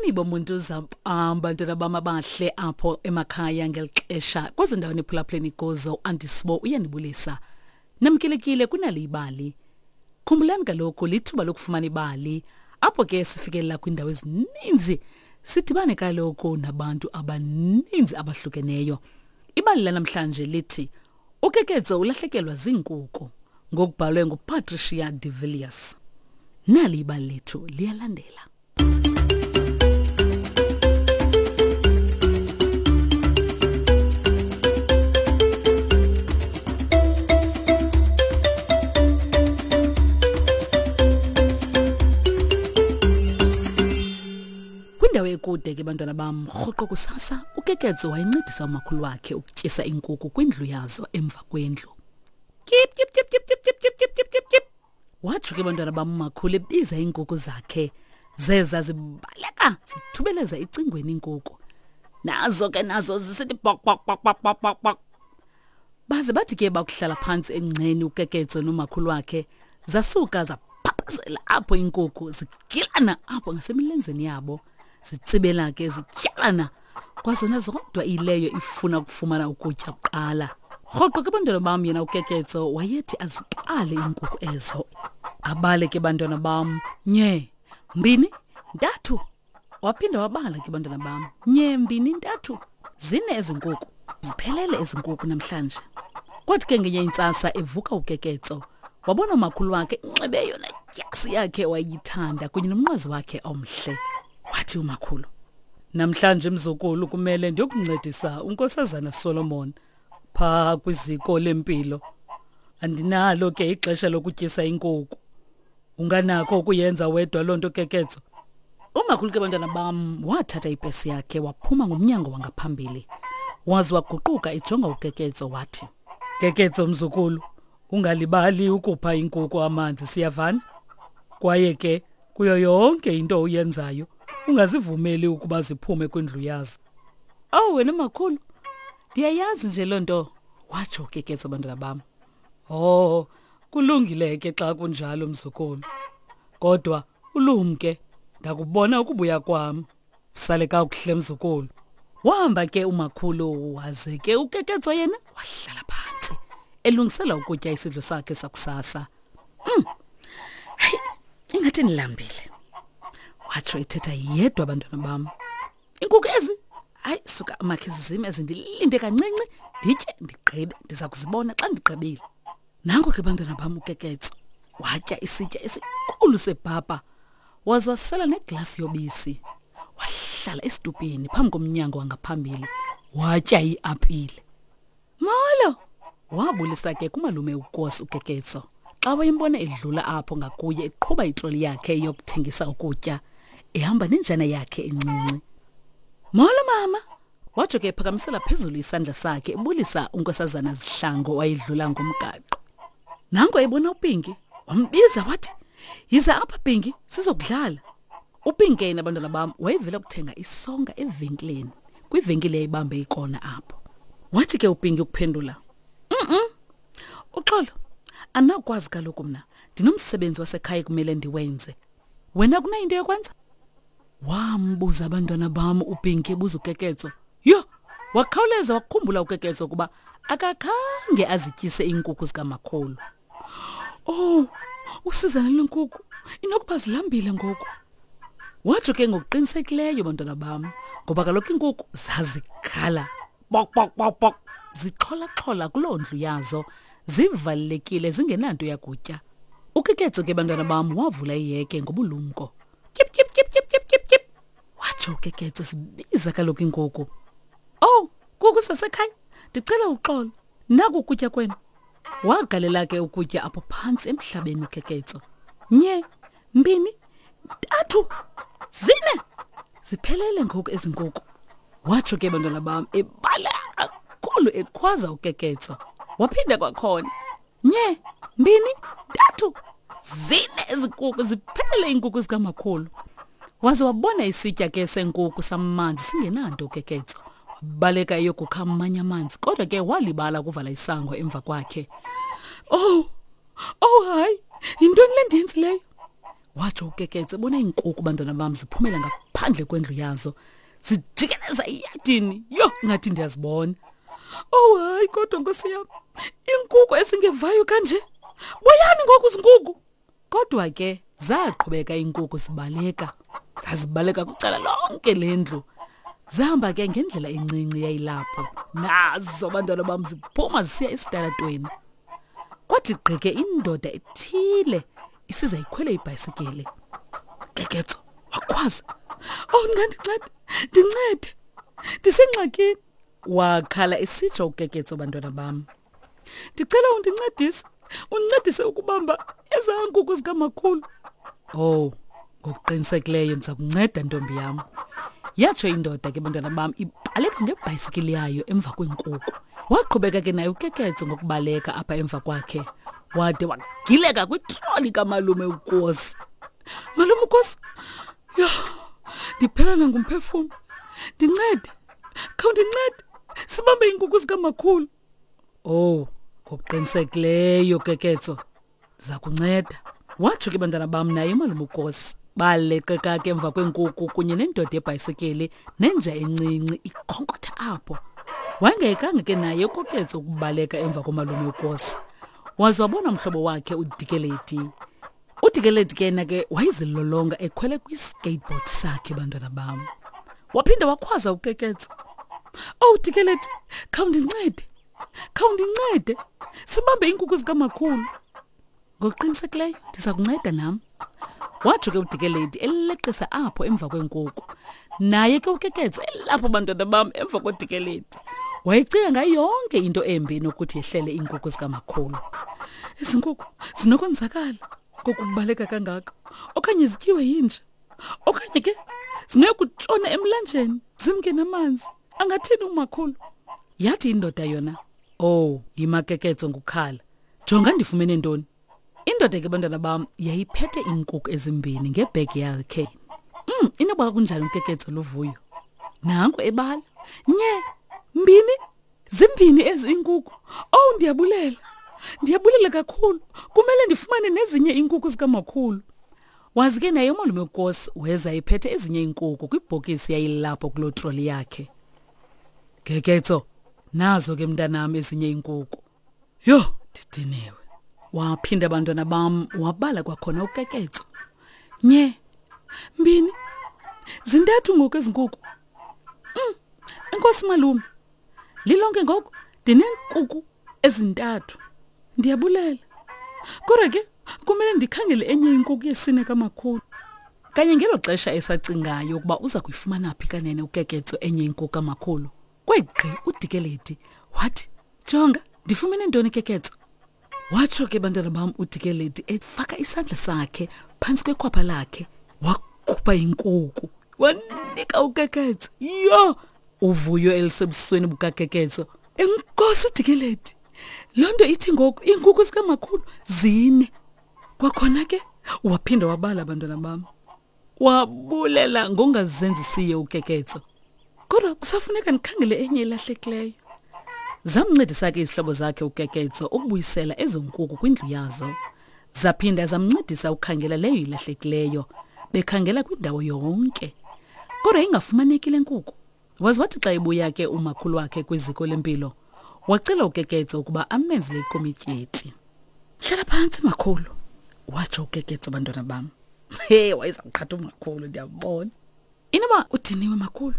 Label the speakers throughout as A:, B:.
A: Molweni bomuntu zampam bantwana bam abahle apho emakhaya ngeli xesha kwezo ndawo niphulaphuleni kuzo andisibo uyanibulisa. Namkelekile kunali ibali. Khumbulani kaloku lithuba lokufumana ibali apho ke sifikelela kwiindawo ezininzi sidibane kaloku nabantu abaninzi abahlukeneyo. Ibali lanamhlanje lithi uKeketso ulahlekelwa ziinkuku ngokubhalwe nguPatricia de Villiers. Nali ibali lethu liyalandela. Kwindawo ekude ke bantwana bam, rhoqo kusasa uKeketso wayencedisa umakhulu wakhe ukutyisa iinkukhu kwindlu yazo emva kwendlu. Tyip tyip tyip tyip tyip tyip tyip tyip tyip tyip. Watsho ke bantwana bam umakhulu ebiza iinkukhu zakhe. Zeza zibaleka zithubeleza ecingweni iinkukhu. Nazo ke nazo zisithi bok bok bok bok bok bok bok. Baze bathi ke bakuhlala phantsi engceni uKeketso nomakhulu wakhe zasuka zaphaphazela apho iinkukhu zigilana apho ngasemilenzeni yabo. Zitsibela ke zityalana kwazona zodwa ileyo ifuna ukufumana ukutya kuqala. Rhoqo ke bantwana bam yena uKeketso wayethi aziqale iinkukhu ezo. Abale ke bantwana bam nye, mbini, ntathu. Waphinda wabala ke bantwana bam nye, mbini, ntathu. Zine ezi nkukhu. Ziphelele ezi nkukhu namhlanje. Kwathi ke ngenye intsasa evuka uKeketso wabona umakhulu wakhe inxibe yona dyasi yakhe wayithanda kunye nomnqwazi wakhe omhle. Wathi umakhulu, namhlanje mzukulu kumele ndiyokuncedisa uNkosazana Solomon phaa kwiziko lempilo. Andinalo ke ixesha lokutyisa inkukhu. Unganakho ukuyenza wedwa loo nto Keketso? Umakhulu ke bantwana bam wathatha ipesi yakhe waphuma ngomnyango wangaphambili. Waze waguquka ejonga uKeketso wathi, Keketso mzukulu, ungalibali ukupha inkukhu amanzi siyavana? Kwaye ke kuyo yonke into oyenzayo ungazivumeli ukuba ziphume kwindlu yazo. Owu wena makhulu, ndiyayazi nje loo nto, watsho uKeketso bantwana bam. Oh, kulungile ke xa kunjalo mzukulu. Kodwa ulumke, ndakubona ukubuya kwam. Sale kakuhle mzukulu. Wahamba ke umakhulu waze ke uKeketso yena wahlala phantsi elungisela ukutya isidlo sakhe sakusasa. Hey, ingathi ndilambile. Watsho ethetha yedwa abantwana bam. Inkukhu ezi hayi suka makhe zizime ezi ndilinde kancinci nditye ndigqibe ndiza kuzibona xa ndigqibile. Nanko ke bantwana bam uKeketso watya isitya esikhulu sebhapa waze wasela neglasi yobisi. Wahlala esitupini phambi komnyango wangaphambili watya iapile. Molo! Wabulisa ke kumalume uKosi uKeketso xa wayembona edlula apho ngakuye eqhuba itroli yakhe yokuthengisa ukutya ehamba nenjana yakhe encinci. Molo mama! Watsho ke ephakamisela phezulu isandla sakhe ebulisa uNkosazana Zihlango wayedlula ngomgaqo. Nanko ebona uPinki, wambiza wathi, "Yiza apha Pinki, sizokudlala." UPinki yena bantwana bam wayevela kuthenga isonka evenkileni, kwivenkile eyayibambe ikona apho. Wathi ke uPinki ukuphendula, Uxolo, andinakukwazi kaloku mna, ndinomsebenzi wasekhaya ekumele ndiwenze. Wena kunayo into yokwenza? Wambuza abantwana bam uPinki ebuza uKeketso. Yho, wakhawuleza wakhumbula uKeketso ukuba akakhange azityise iinkukhu zikamakhulu. Oh, usizana lenkukhu inokuba zilambile ngoku. Watsho ke ngokuqinisekileyo bantwana bam, ngoba kaloku iinkukhu zazikhala bok bok bok bok zixholaxhola kuloo ndlu yazo zivalelekile zingenanto yakutya. UKeketso ke bantwana bam wavula iheke ngobulumko. Tyip tyip tyip tyip tyip tyip tyip. Watsho uKeketso sibiza kaloku inkukhu. Oh, kuku sasekhaya, ndicela uxolo. Naku ukutya kwenu. Wagalela ke ukutya apho phantsi emhlabeni uKeketso. Nye, mbini, ntathu, zine. Ziphelele ngoku ezi nkukhu. Watsho ke bantwana bam ebala kakhulu ekhwaza uKeketso. Waphinda kwakhona. Nye, mbini, ntathu, zine ezinkukhu ziphele iinkukhu zikamakhulu. Waze wabona isitya ke senkukhu samanzi singenanto uKeketso. Wabaleka eyokukha amanye amanzi kodwa ke walibala ukuvala isango emva kwakhe. Oh, oh hayi, yintoni le ndiyenzileyo? Watsho uKeketso ebona iinkukhu bantwana bam ziphumela ngaphandle. ngaphandle kwendlu yazo zijikeleza iyadini. Yho, ngathi ndiyazibona. Oh hayi kodwa nkosi yam, iinkuku ezingevayo kanje. Buyani ngoku zinkuku. Kodwa ke zaqhubeka iinkuku zibaleka. Zazibaleka kwicala lonke lendlu. Zahamba ke ngendlela encinci yayilapho. Nazo abantwana bam ziphuma zisiya esitalatweni. Kwathi gqike indoda ethile isiza ikhwele ibhayisikile. Keketso wakhwaza. Oh ndingandincede, ndincede. Ndisengxakini. Wakhala esitsho uKeketso bantwana bam. Ndicela undincedise, undincedise ukubamba ezaa nkukhu zikamakhulu. Oh, ngokuqinisekileyo ndiza kunceda ntombi yam. Yatsho indoda ke bantwana bam ibaleka ngebhayisikili yayo emva kweenkuku. Waqhubeka ke naye uKeketso ngokubaleka apha emva kwakhe. Wade wagileka kwitroli kamalume uKosi. Malume uKosi, yho, ndiphelana ngumphefumlo. Ndincede, khawundincede, sibambe iinkukhu zikamakhulu. Oh, ngokuqinisekileyo Keketso, ndiza kunceda. Watsho ke bantwana bam naye umalume uKosi. Baleqeka ke emva kweenkukhu kunye nendoda yebhayisikili nenja encinci ikhonkotha apho. Wayengayekanga ke naye uKoketso ukubaleka emva komalume uKosi. Waze wabona umhlobo wakhe uDikeledi. UDikeledi ke yena ke wayezilolonga ekhwele kwi-skateboard sakhe bantwana bam. Waphinda wakhwaza uKeketso. Oh Dikeledi, khawundincede. Khawundincede. Sibambe iinkukhu zikamakhulu. Ngokuqinisekileyo ndiza kunceda nam. Watsho ke uDikeledi eleqisa apho emva kweenkukhu. Naye ke uKeketso elapho bantwana bam emva koDikeledi. Wayecinga ngayo yonke into embi enokuthi yehlele iinkukhu zikamakhulu. Ezi nkukhu zinokonzakala kokubaleka kangaka okanye zityiwe yinja okanye ke zinokutshona emlanjeni zimke namanzi. Angathini umakhulu? Yathi indoda yona, oh, yimakeketso ngukhala. Jonga ndifumene ntoni. Indoda ke bantwana bam yayiphethe iinkukhu ezimbini ngebhegi yakhe. Inoba kunjani uKeketso luvuyo. Nanku ebala. Nye, mbini, zimbini ezi iinkukhu. Oh, ndiyabulela. Ndiyabulela kakhulu. Kumele ndifumane nezinye iinkukhu zikamakhulu. Wazi ke naye umalume uKosi weza ephethe ezinye iinkukhu kwibhokisi yayilapho kuloo troli yakhe. Keketso, nazo ke mntanam ezinye iinkukhu. Yho, ndidiniwe. Waphinda abantwana bam wabala kwakhona uKeketso. Nye, mbini, zintathu ngoku ezi nkukhu. Enkosi malume. Lilonke ngoku ndineenkukhu ezintathu. Ndiyabulela. Kodwa ke kumele ndikhangele enye inkukhu yesine kamakhulu. Kanye ngelo xesha esacingayo ukuba uza kuyifumana phi kanene uKeketso enye inkukhu kamakhulu, kwegqi uDikeledi wathi, Jonga, ndifumene ntoni Keketso? Watsho ke bantwana bam uDikeledi efaka isandla sakhe phantsi kwekhwapha lakhe, wakhupha inkuku wanika uKeketso. Yho, uvuyo elisebusweni bukaKeketso. Enkosi Dikeledi, loo nto ithi ngoku iinkukhu zikamakhulu zine. Kwakhona ke waphinda wabala abantwana bam, wabulela ngongazenzisiyo uKeketso. Kodwa kusafuneka ndikhangele enye elahlekileyo. Zamncedisa ke izihlobo zakhe uKeketso ukubuyisela ezo nkuku kwindlu yazo. Zaphinda zamncedisa ukukhangela leyo ilahlekileyo, bekhangela kwindawo yonke. Kodwa ingafumaneki le nkuku. Waze wathi xa ebuya ke umakhulu wakhe kwiziko lempilo, wacela uKeketso ukuba amenzele ikomityi. Hlala phantsi makhulu, watsho uKeketso bantwana bam. He, wayeza kuqhatha umakhulu, ndiyabona. Inoba udiniwe makhulu,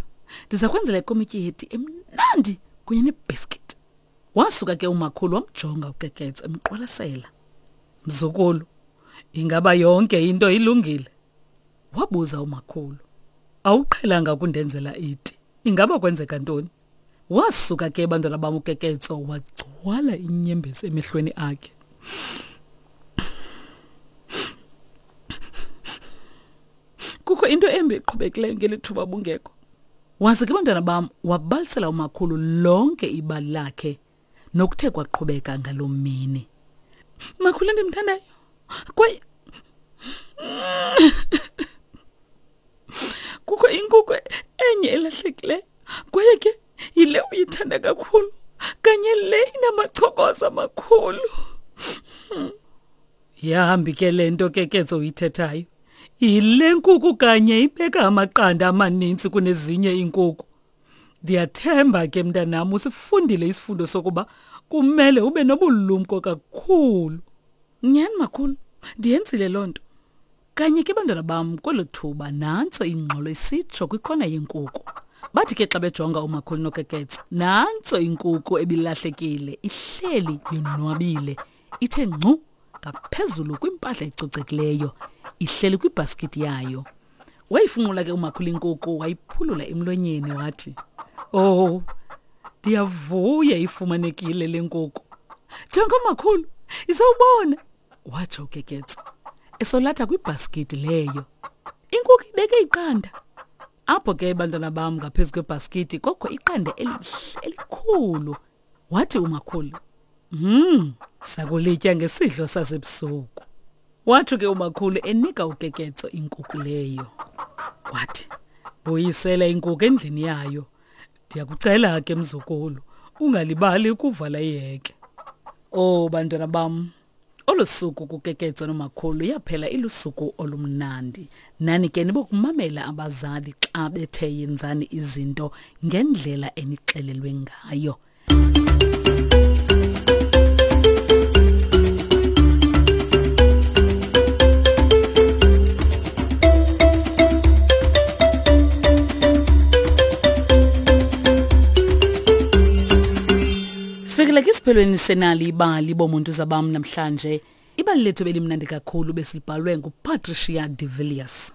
A: ndiza kwenzela ikomityi yeti emnandi kunye nebhiskithi. Wasuka ke umakhulu wamjonga uKeketso emqwalasela. Mzukulu, ingaba yonke into ilungile? Wabuza umakhulu. Awuqhelanga ukundenzela iti. Ingaba kwenzeka ntoni? Wasuka ke bantwana bam uKeketso wagcwala inyembezi emehlweni akhe. Kukho into embi eqhubekileyo ngeli thuba bungekho. Waze ke bantwana bam wabalisela umakhulu lonke ibali lakhe nokuthe kwaqhubeka ngaloo mini. Makhulu endimthandayo, kwaye kukho inkukhu enye elahlekileyo kwaye ke yile uyithanda kakhulu kanye le inamachokoza amakhulu. Yahambi ke le nto Keketso uyithethayo. Yile nkuku kanye ibeka amaqanda amaninzi kunezinye iinkuku. Ndiyathemba ke mntanam usifundile isifundo sokuba kumele ube nobulumko kakhulu. Nyhani makhulu, ndiyenzile loo nto. Kanye ke bantwana bam kwelo thuba nantso ingxolo isitsho kwikhona yenkuku. Bathi ke xa bejonga umakhulu noKeketso, nantso inkuku ebilahlekile ihleli yonwabile ithe ngcu ngaphezulu kwimpahla ecocekileyo ihleli kwibhaskithi yayo. Wayifunqula ke umakhulu inkuku wayiphulula emlonyeni wathi, "Oh, ndiyavuya ifumanekile le nkuku." Jonga makhulu, isawubona, watsho uKeketso esolatha kwibhaskithi leyo. Inkuku ibeke iqanda. Apho ke bantwana bam ngaphezu kwebhaskithi kokho iqanda elihle elikhulu. Wathi umakhulu, sakulitya ngesidlo sasebusuku." Watsho ke umakhulu enika uKeketso inkuku leyo. Wathi, "Buyisela inkuku endlini yayo. Ndiyakucela ke mzukulu, ungalibali ukuvala iheke." Oh bantwana bam, olu suku kuKeketso nomakhulu yaphela ilusuku olumnandi. Nani ke nibokumamela abazali xa bethe yenzani izinto ngendlela enixelelwe ngayo. Sifikile ke isiphelweni senali ibali bomuntu zabam namhlanje. Ibali lethu belimnandi kakhulu besilibhalwe nguPatricia de Villiers.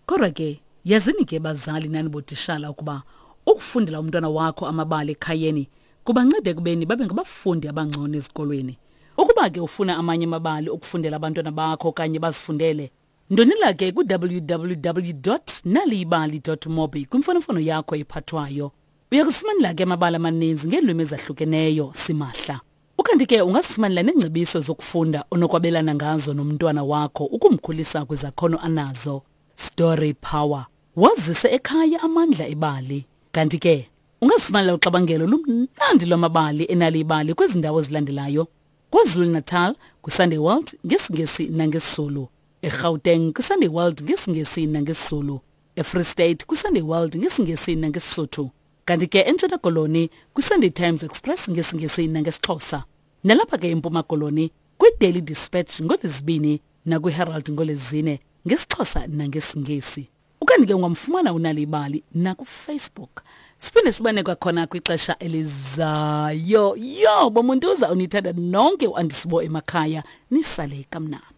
A: Kodwa ke yazini ke bazali nani botishala ukuba ukufundela umntwana wakho amabali ekhayeni kubanceda ekubeni babe ngabafundi abangcono ezikolweni. Ukuba ke ufuna amanye amabali okufundela abantwana bakho okanye bazifundele, ndonela ke ku-www.naliyibali.mobi kwimfonomfono yakho ephathwayo. Uya kusifumanela ke amabali amaninzi ngeelwimi ezahlukeneyo simahla. Ukanti ke ungasifumanela neengcebiso zokufunda onokwabelana ngazo nomntwana wakho ukumkhulisa kwizakhono anazo. Story Power. Wazise ekhaya amandla ebali. Kanti ke ungazifumanela uxabangelo lumnandi lwamabali enali ibali kwezi ndawo zilandelayo. KwaZulu-Natal kwiSunday World ngesiNgesi nangesiZulu. EGauteng kwiSunday World ngesiNgesi nangesiZulu. EFree State kwiSunday World ngesiNgesi nangeSisotho. Kanti ke eNtshona Koloni kwiSunday Times Express ngesiNgesi nangesiXhosa. Nalapha ke eMpuma Koloni kwiDaily Dispatch ngoLwezibini nakwiHerald ngoLwezine ngesiXhosa nangesiNgesi. Ukanti ke ungamfumana uNali Ibali nakuFacebook. Siphinde sibane kwakhona kwixesha elizayo. Yo, bomuntuza unithanda nonke uAndisibo emakhaya nisale kamnandi.